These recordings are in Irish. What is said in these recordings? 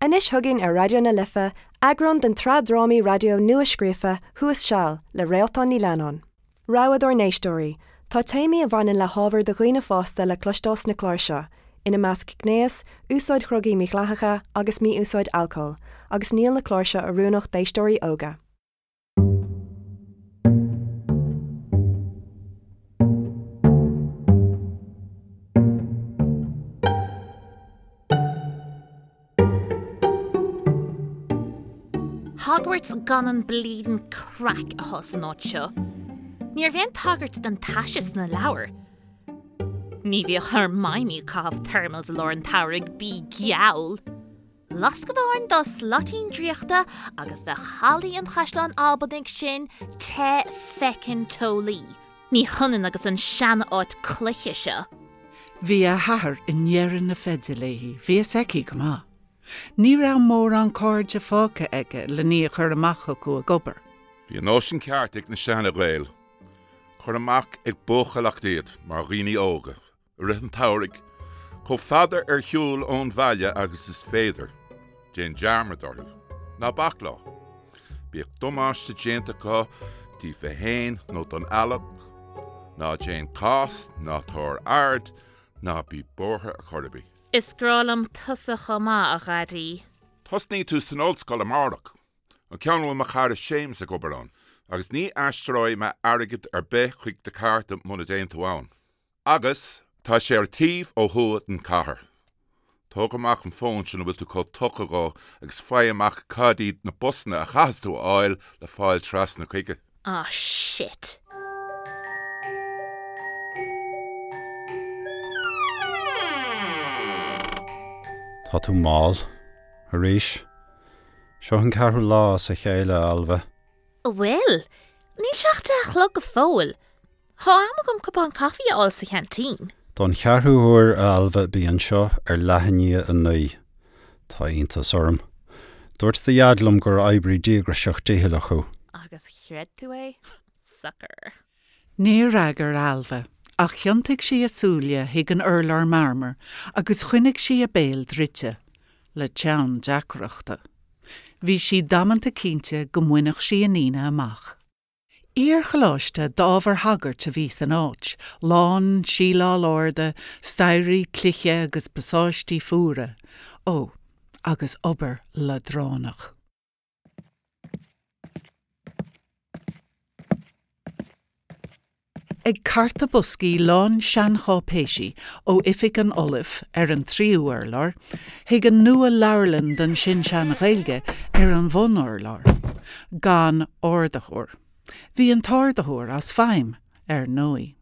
Anois chugainn ar Raidió na Life, eagrán den tsraith drámaí raidió nua-scríofa Thuas Seal le Réaltán Ní Leannáin. Rabhadh dár n-éisteoirí, tá téamaí a bhaineann le hábhar do dhaoine fásta le cloisteáil sna cláir seo, ina measc gnéas, úsáid dhrugaí mídhleathacha agus mí-úsáid alcóil, agus níl na cláir seo oiriúnach d'éisteoirí óga. Hogwarts gan an bleedin' craic atá san áit seo. Ní raibh aon tagairt don taise sna leabhair. Ní bhíodh Hermione ag caitheamh thermals i lár an tsamhraidh, bí geall! Lasc amháin dá slaitín draíochta agus bheadh hallaí an Chaisleáin Albanaigh sin te feckin' teolaí. Ní hionann agus an sean-áit cloiche seo. Bhí a hathair i ndeireadh na feide léi, bhí fhios aici go maith. Ní raibh mórán cairde fágtha aige len í a chur amach chucu ag obair. Bhí an nóisean ceart ag na seana-Ghaeil. Cuir amach ag buachailleacht iad mar dhaoine óga. I rith an tsamhraidh, chomh fada ar shiúl ón bhaile agus is féidir. Déan dearmad orthu. Ná bac leo. Bíodh damáiste déanta acu daofa fhéin nó don eallach. Ná déan cás, ná tabhair aird, ná bí buartha ar chor ar bith. Is grá liom tusa chomh maith, a Dhaidí. Tosnaíonn tú san ollscoil amárach. An ceann a bhfuil mo chara Séamus ag obair ann. Agus ní aistreoidh mé airgead ar bith chuig do chárta muna dtéann tú ann. Agus tá sé ar an taobh ó thuaidh den chathair. Tóg amach an fón sin a bhfuil tú chomh tugtha dhó agus faigh amach cad iad na busanna a chaithfeas tú a fháil le fáil trasna chuige. Ah shit. Tá tú mall. Arís. Seo an ceathrú lá as a chéile, a Ailbhe. An bhfuil? Níl sé ach 10 a chlog go fóill. Tá am agam cupán caife a fháil sa cheaintín. Don cheathrú huair, a Ailbhe, bí anseo ar leath i ndiaidh 9. Tá iontas orm. Dúirt do Dhaid liom gur oibrí díograiseach dícheallach thú. Agus chreid tú é? Sucker. Níor fhreagair Ailbhe, ach thiontaigh sí a súile chuig an urlár marmair agus choinnigh sí a béal druidte, le teann deacrachta. Bhí sí damanta cinnte go mbainfeadh sí an Aoine amach. Iar-choláiste d'ábhair shagairt a bhí san áit, lán síleáil arda, staighrí cloiche agus pasáistí fuara, ó, agus obair leadránach. Ag cartadh boscaí lán seancháipéisí ó oifig an Ollaimh ar an tríú urlár chuig an nua-leabharlann don sin-sean-Ghaeilge ar an bhun-urlár. Gan ardaitheoir. Bhí an t-ardaitheoir as feidhm, ar ndóigh.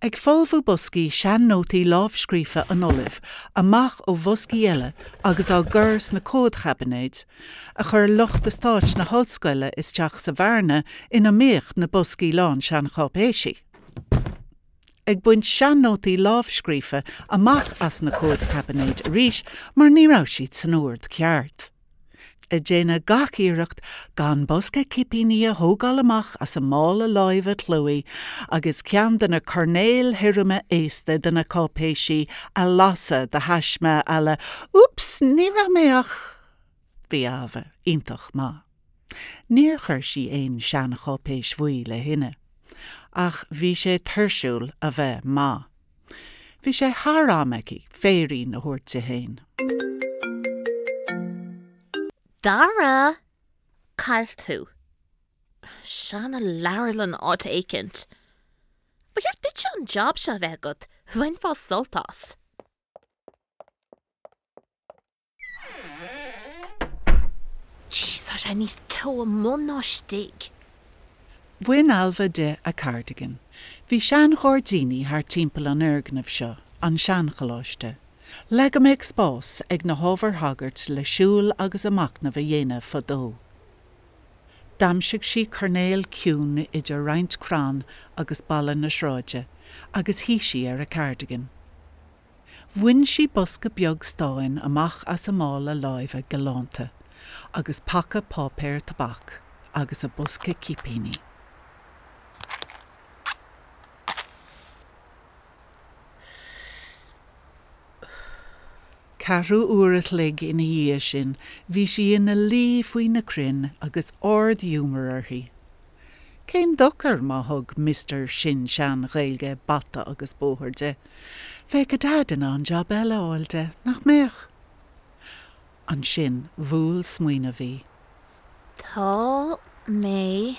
Ag folmhú boscaí sean-nótaí lámhscríofa an Ollaimh amach ó bhoscaí eile agus á gcur sna comhadchaibinéid, a chuir lucht eastáit na hollscoile isteach sa bhearna ina mbíodh na boscaí lán seancháipéisí. Ag baint sean-nótaí lámhscríofa amach as na comhadchaibinéid arís mar ní raibh siad san ord ceart. Ag déanamh gach iarracht gan bosca cipíní a thógáil amach as a mála láimhe clóidh agus ceann de na coirnéil thirime aosta de na cáipéisí a lasadh de thaisme à la 'Oops, ní raibh mé ach. Bhí Ailbhe iontach maith. Níor chuir sí aon seancháipéis bhuí le thine. Ach bhí sé tuirsiúil a bheith maith. Bhí sé thar am aici féirín a thabhairt di féin. Dara! Cá bhfuil tú. Seana-leabharlann áit éicint. Ba cheart duitse an job seo a bheith agat, bhainfeá sult as. Jeez, tá sé níos teo amuigh ná istigh. Bhain Ailbhe di a cardigan. Bhí seanghairdíní thart timpeall an fhoirgnimh seo, an seancholáiste, le go mbeadh spás ag na hábhair shagairt le siúl agus a machnamh a dhéanamh fadó. D'aimsigh sí coirnéal ciúin idir roinnt crann agus balla na sráide agus shuigh sí ar a cardigan. Bhain sí bosca beag stáin amach as a mála láimhe galánta agus paca páipéir tobac agus a bosca cipíní. Ceathrú uair a chloig ina dhiaidh sin bhí sí ina luí faoi na crainn agus ard-ghiúmar uirthi. Cén dochar má thug Mister Sin-Sean-Ghaeilge bata agus bóthar di? Bheadh a Daid in ann jab eile a fháil di, nach mbeadh? Ansin bhuail smaoineamh í. Tá mé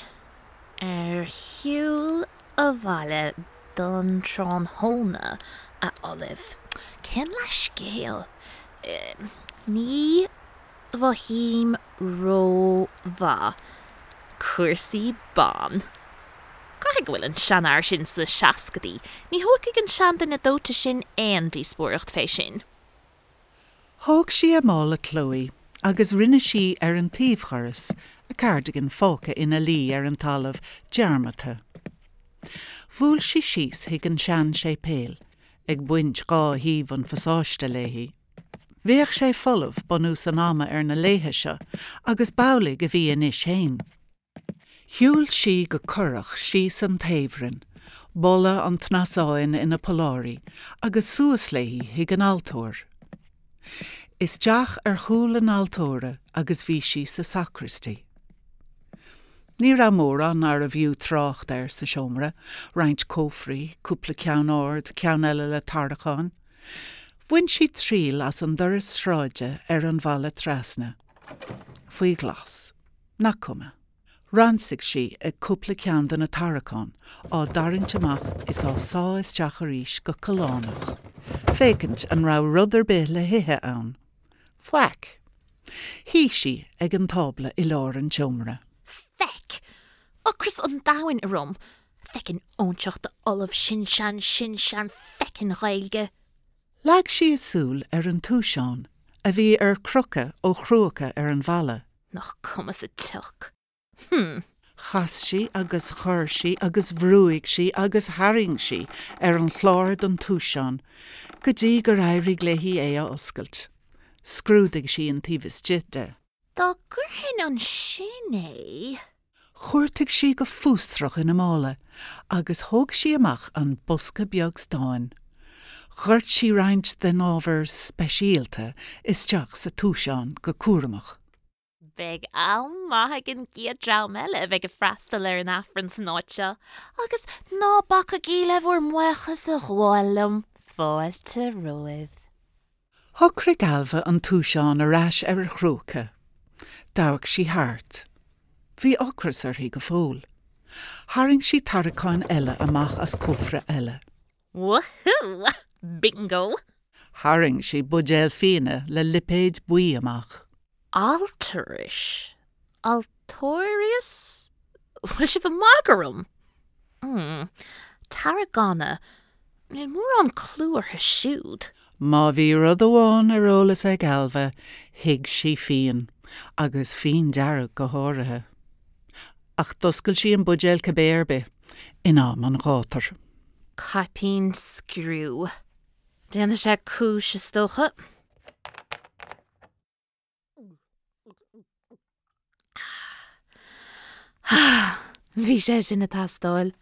ar shiúl abhaile don tráthnóna, a Ollaimh. Cén leathscéal? Ní mhothaím rómhaith. Cúrsaí ban. Caithfidh go bhfuil an seanfhear sin sna seascadaí. Ní thógfaidh an seanduine dóite sin aon díospóireacht fé sin. Thóg sí a mála Chloe agus rinne sí ar an taobhdhoras, a cardigan fágtha ina luí ar an talamh dearmadta. Bhuail sí síos chuig an sean-séipéal, ag baint dhá thaobh an phasáiste léi. Bheadh sé folamh bunús an ama ar na laethe seo agus b'amhlaidh a bhí anois fhéin. Shiúil sí go corrach síos an taobhroinn, boladh an tsnasáin ina polláirí, agus suas léi chuig an altóir. Isteach ar chúl an altóra agus bhí sí sa sacristy. Ní raibh mórán arbh fhiú trácht air sa seomra, roinnt cófraí, cúpla ceann ard, ceann eile le tarraiceáin. Bhain sí triail as an doras sráide ar an bhfalla trasna. Faoi ghlas. Nach cuma. Ransaigh sí ag cúpla ceann de na tarraiceáin, á dtarraingt amach is á sá isteach arís go callánach, féachaint an raibh rud ar bith le hithe ann. Faic. Shuigh sí ag an tábla i lár an tseomra. Feck! Ocras an domhain orm! Feckin' óinseach d'ollamh sin-sean sin-sean feckin' Ghaeilge! Leag sí a súil ar an túiseán, a bhí ar crochadh ó chrúca ar an bhalla. Nach cuma sa tsioc. Hm. Chas sí agus chuir sí agus bhrúigh sí agus tharraing sí ar an chlár don túiseán go dtí gur éirigh léi é a oscailt. Scrúdaigh sí an taobh istigh de. Dá gcuirfinn ansin é. Chuartaigh sí go fiosrach ina mála agus thóg sí amach an bosca beag stáin. Dhoirt sí roinnt den ábhar speisialta isteach sa túiseán go cúramach. Beidh am maith ag an gcéad dream eile a bheidh ag freastal ar an Aifreann san áit seo, agus ná bacaigí le bhur mbuíochas a ghabháil liom, fáilte romhaibh. Shocraigh Ailbhe an túiseán ar ais ar a chrúca. D'amharc sí thart. Bhí ocras uirthi go fóill. Tharraing sí tarraiceáin eile amach as cófra eile. Woohoo! Bingo! Tharraing sí buidéal fíona le lipéad buí amach. Altaris? Altóirius? Bhfuil sibh ag magadh orm? Mm. Tarragona. Níl mórán clú orthu siúd. Má bhí rud amháin ar eolas ag Ailbhe, thuig sí fíon, agus fíon dearg go háirithe. Ach d'oscail sí an buidéal cibé ar bith, in am an ghátair. Caipín scriú. Déanfaidh sé cúis, is dócha. Bhí sé sin ag teastáil.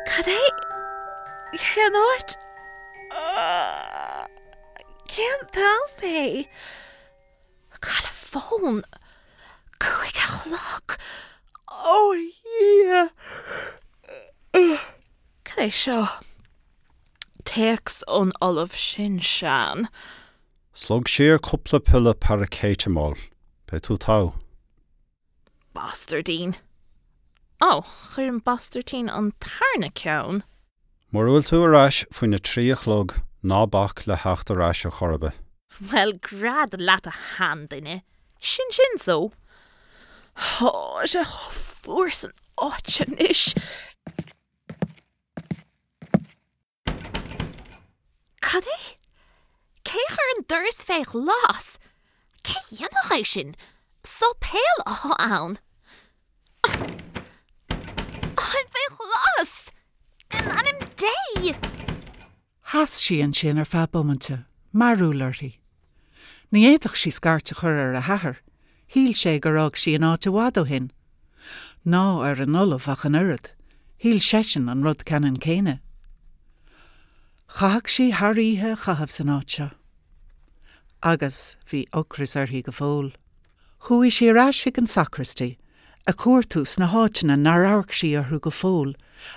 Cad é? Cén áit? Cén t-am é? Cá bhfuil an fón? 5 a chlog! Ó a Dhia! Cad é seo? Téacs ón Ollamh Sin-Sean. Slog siar cúpla piolla paraicéiteamóil. Beidh tú togha. Bastairdín. Ó, chuir an bastairtín an tarna ceann. Mura bhfuil tú ar ais faoina trí a chlog, ná bac le theacht ar ais ar chor ar bith. Bhuel, gread leat a sheanduine. Sin sin so. Tá sé chomh fuar san áit anois. Cad é? Cé a chuir an doras fé ghlas? Cé a dhéanfadh é sin? Sáipéal athá ann. Táim fé ghlas! In ainm Dé! Sheas sí ansin ar feadh bomainte, mearúil uirthi. Ní fhéadfadh sí scairt a chur ar a hathair, shíl sé gur fhág sí an áit i bhfad ó shin. Ná ar an ollamh ach an oiread, shíl seisean an rud ceannann céanna. Chaithfeadh sí thar oíche a chaitheamh san áit seo. Agus bhí ocras uirthi go fóill. Chuaigh sí ar ais chuig an sacraistí, ag cuartú sna háiteanna nár amharc sí orthu go fóill,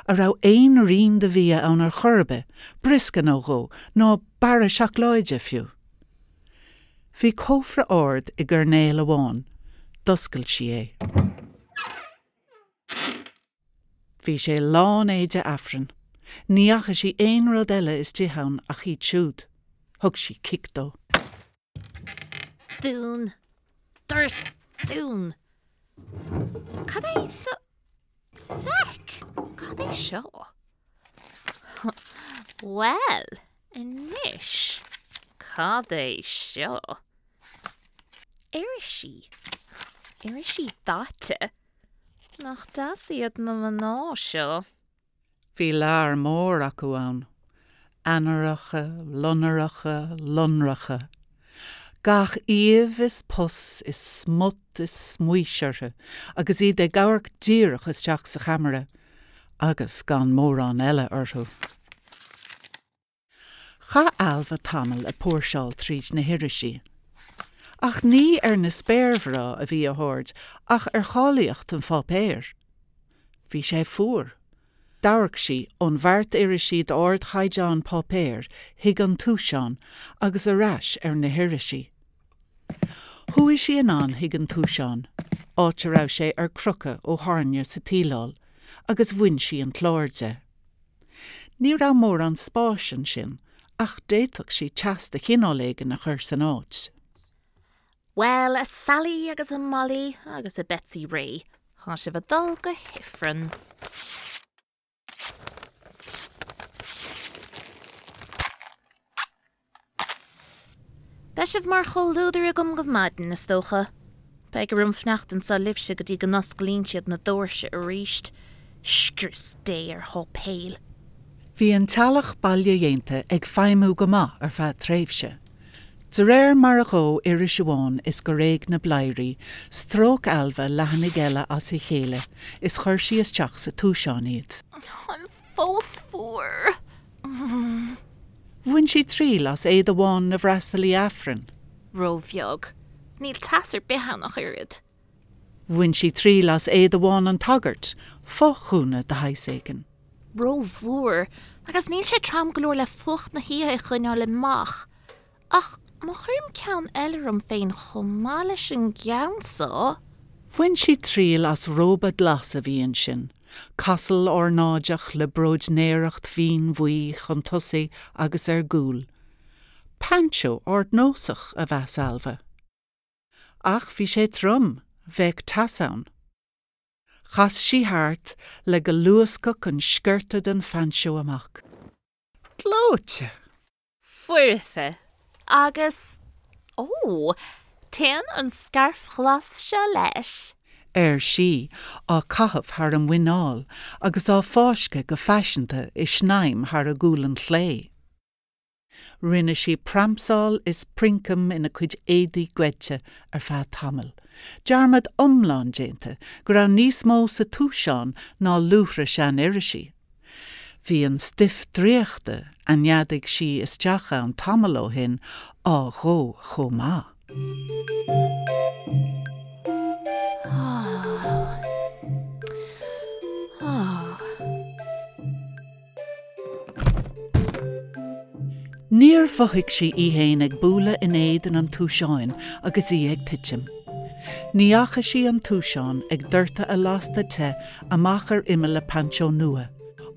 a raibh aon rian de bhia ann ar chor ar bith, briosca nó dhó, nó barra seacláide, fiú. Bhí cófra ard i gcoirnéal amháin. D'oscail sí é. Bhí sé lán éide Aifrinn. Ní fhaca sí aon rud eile istigh ann ach iad siúd. Thug sí cic dó. Dún. Doras dún. Cad é sa feic? Cad é seo? Bhuel, anois, cad é seo? Irisí. Irisí daite. Nach deas iad na mná seo? Bhí lear mór acu ann, Eanáracha, lonracha, lonracha. Gach aoibh is pus is smut is smaois orthu agus iad ag amharc díreach isteach sa cheamara agus gan mórán eile orthu. Chaith Ailbhe tamall ag póirseáil tríd na hirisí. Ach ní ar na spéirmhná a bhí a haird ach ar cháilíocht an pháipéir. Bhí sé fuar. D'amharc sí ón bheart irisí d'ardchaighdeán páipéir chuig an túiseán agus ar ais ar na hirisí. Chuaigh sí anonn chuig an túiseán, áit a raibh sé ar crochadh ó thairne sa tsíleáil, agus bhain sí an clár de. Ní raibh mórán spáis ansin ach d'fhéadfadh sí teas de chineál éigin a chur san áit. Bhuel, a Sally agus a Molly agus a Betsy Ray, tá sibh ag dul go hIfreann. Beidh sibh mar chomhluadar agam go maidin, is dócha. Beidh orm fanacht anso libhse go dtí go n-osclaíonn siad na doirse arís. Scrios Dé ar sháipéil! Bhí an teallach bailedhéanta ag feidhmiú go maith ar feadh tréimhse. De réir mar a dhóigh iris amháin is gur éag na bladhairí, stróic Ailbhe leathanaigh eile as a chéile is chuir sí isteach sa túiseán iad. Táim fós fuar. Bhain sí triail as éide bhán na bhfreastalaí Aifrinn. Róbheag. Níl teas ar bith ann ach oiread. Bhain sí triail as éide bhán an tsagairt, fo-ghúna de shaghas éigin. Rómhór, agus níl sé trom go leor le fuacht na hoíche a choinneáil amach. Ach má chuirim ceann eile orm féin chomh maith leis an gceann so. Bhain sí triail as róba glas a bhí ansin, casal ornáideach le bróidnéireacht mhín bhuí chun tosaigh agus ar gcúl. Peainseó ardnósach, a mheas Ailbhe. Ach bhí sé trom, bheadh teas ann. Chas sí thart le go luascfadh an sciorta den phainseó amach. Gleoite! Foirfe. Agus, ó, téann an scairf ghlas seo leis. ar sí, á caitheamh thar a muineál agus á fáisceadh go faiseanta i snaidhm thar a gualainn chlé. Rinne sí pramsáil is princeam ina cuid éadaí goidte ar feadh tamaill, dearmad iomlán déanta go raibh níos mó sa túiseán ná luaithre sean-irisí. Bhí an stuif draíochta a neadaigh sí isteach ann tamall ó shin á dhó chomh maith. Níor mhothaigh sí í fhéin ag bualadh in éadan an túiseáin agus í ag titim. Ní fhaca sí an túiseán ag doirteadh a lasta te amach ar imeall a painseó nua,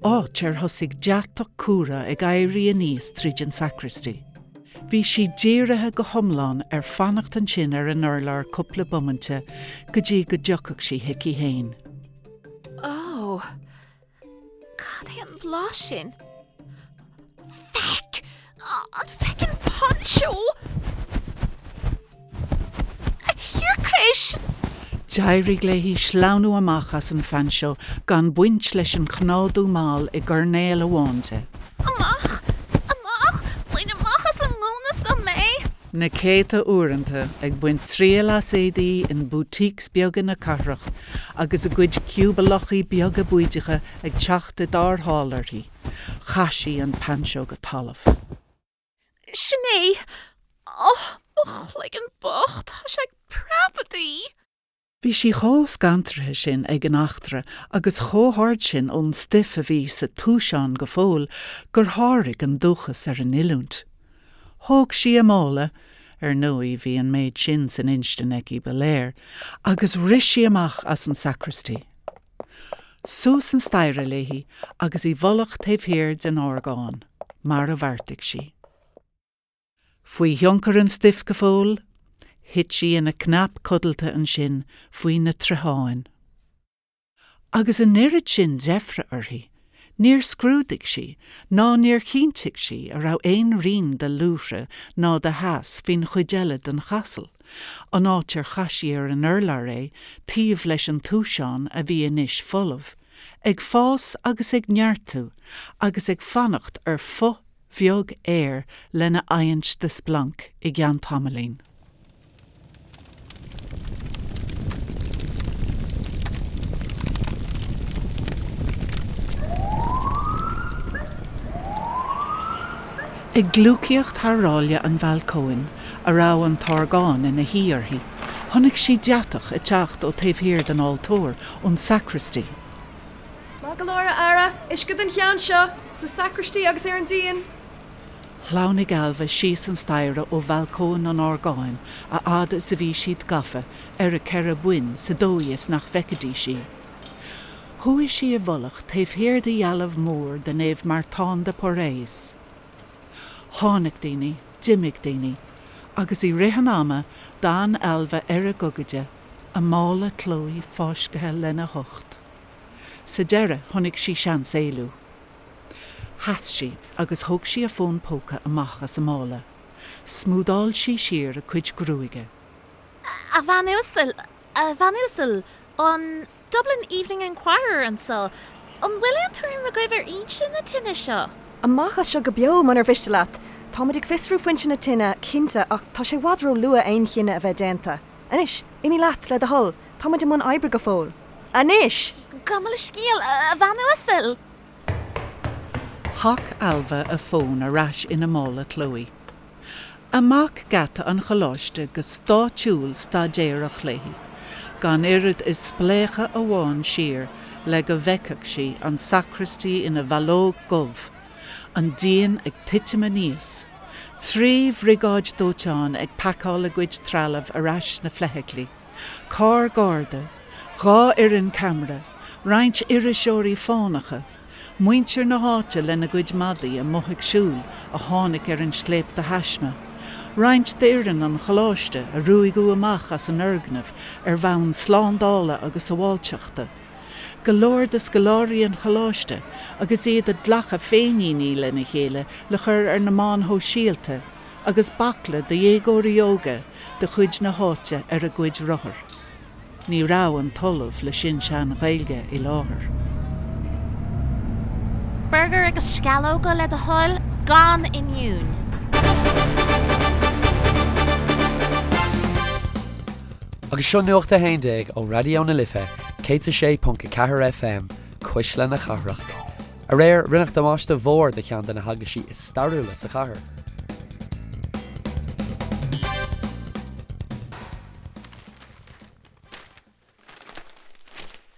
áit ar thosaigh deatach cumhra ag éirí aníos tríd an sacraistí. Bhí sí dírithe go hiomlán ar fanacht ansin ar an urlár cúpla bomainte go dtí go dtiocfadh sí chuici fhéin. Ó! Cad é an blas sin? Feck! An feckin' poncho! A thiarcais! D'éirigh léi sleamhnú amach as an phainseó gan baint leis an chnádú mall i gcoirnéal amháin de. Amach! Amach! Na céadta uaireanta ag baint triail as éadaí in boutiques beaga na cathrach agus a cuid ciúbalachaí beaga bídeacha ag teacht i dtarrtháil uirthi, chaith sí an poncho go talamh. Sin é! Ó, mo chloigeann bocht, tá sé ag preabadh! Bhí sí chomh scantraithe sin ag an eachtra agus chomh hard sin ón stuif a bhí sa túiseán go fóill gur sháraigh an dúchas ar an oiliúint. Thóg sí a mála, ar ndóigh bhí an méid sin san instinn aici ba léir, agus rith sí amach as an sacristy. Suas an staighre léi agus i bhfolach taobh thiar den orgán, mar a bheartaigh sí. Faoi thionchar an stuif go fóill, thit sí ina cnap codlata ansin faoi na troitheáin. Agus an oiread sin deifre uirthi, níor scrúdaigh sí ná níor chinntigh sí a raibh aon rian de luaithre ná de theas faoin chuid eile den chasal, an áit ar chaith sí ar an urlár é taobh leis an túiseán a bhí anois folamh, ag fás agus ag neartú agus ag fanacht ar phuth bheag aeir lena adhaint de splanc i gceann tamaillín. Ag gliúcaíocht thar ráille an bhalcóin, a raibh an t-orgán ina shuí uirthi, chonaic sí deatach ag teacht ó taobh thiar den altóir, ón sacristy. Maith go leor, a fheara! Uisce don cheann seo! Sa sacristy agus ar an díon! Shleamhnaigh Ailbhe síos an staighre ó bhalcóin an orgáin a fhad is a bhí siad gafa ar a ceithre boinn sa dóigh is nach bhfeicfidís í. Chuaigh sí i bhfolach taobh thiar de dhealbh mór de Naomh Martin de Porres. Tháinig daoine, d'imigh daoine, agus i rith an ama d'fhan Ailbhe ar a gogaide, a mála clóidh fáiscthe lena hucht. Sa deireadh chonaic sí seans éalú. Sheas sí agus thóg sí a fón póca amach as a mála. Smúdáil sí siar a cuid gruaige. A bhean uasal, a bhean uasal, an Dublin Evening Enquirer anseo. An bhfuil aon tuairim agaibh ar fhoinse na tine seo? Amach as seo go beo, munar mhiste leat. Táimid ag fiosrú foinse na tine, cinnte, ach tá sé i bhfad ró-luath aon chinneadh a bheith déanta. Anois, imigh leat, le do thoil. Táimid i mbun oibre go fóill. Anois! Gabh mo leithscéal, a bhean uasal! Shac Ailbhe a fón ar ais ina mála clóidh. Amach geata an choláiste go stáitsiúil staidéarach léi, gan oiread is spléachadh amháin siar le go bhfeicfeadh sí an sacraistí ina bhallóg dhubh, an díon ag titim aníos, 3 bhriogáid dóiteáin ag pacáil a gcuid trealaimh ar ais sna feithiclí, carr garda, 2 fhoireann ceamara, roinnt iriseoirí fánacha, muintir na háite lena gcuid madaí amuigh ag siúl a tháinig ar an scléip de thaisme, roinnt d'fhoireann an choláiste a ruaigeadh amach as an fhoirgneamh ar bhonn slándála agus sábháilteachta, go leor de scoláirí an choláiste agus iad ag glacadh féinníní lena chéile le cur ar na meáin shóisialta, agus baicle de dhéagóirí óga de chuid na háite ar a gcuid rothar. Ní raibh an tOllamh le Sin-Sean-Ghaeilge i láthair. Burgar agus sceallóga le do thoil, gan oinniún. Agus seo Nuacht a 11 ó Raidió na Life 106.4 FM, Cuisle na Cathrach. Aréir, rinneadh damáiste mhór do cheann de na heaglaisí is stairiúla sa chathair.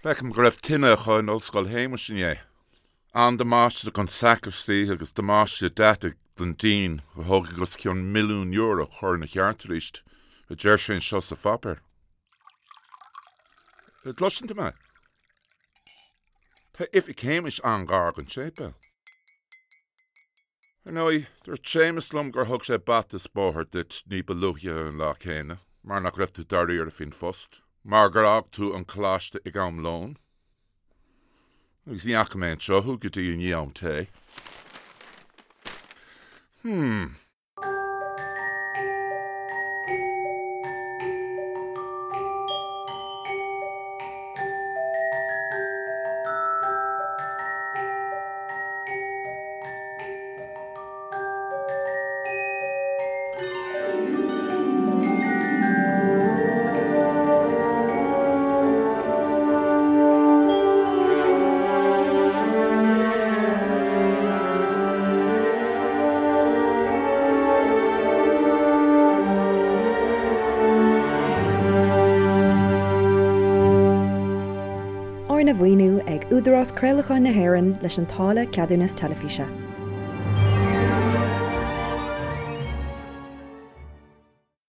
Feicim go raibh tine acu in Ollscoil Shéamais inné. An-damáiste don sacristy agus damáiste deataigh don díon a thógfaidh os cionn €1,000,000 a chur ina cheart arís, a deir sé anseo sa pháipéar. An gcloiseann tú mé? Tá oifig Shéamais an-ghar don séipéal. Ar ndóigh, dúirt Séamus liom gur thug sé bata is bóthar duit ní ba luaithe an lá céanna, mar nach raibh tú dáiríre faoin phost, mar gur fhág tú an coláiste ag am lóin. Agus ní fhaca mé anseo thú go dtí i ndiaidh am tae. Hmm. mhaoiniú ag Údarás Craolacháin na hÉireann leis an táille Ceadúnas Teilifíse.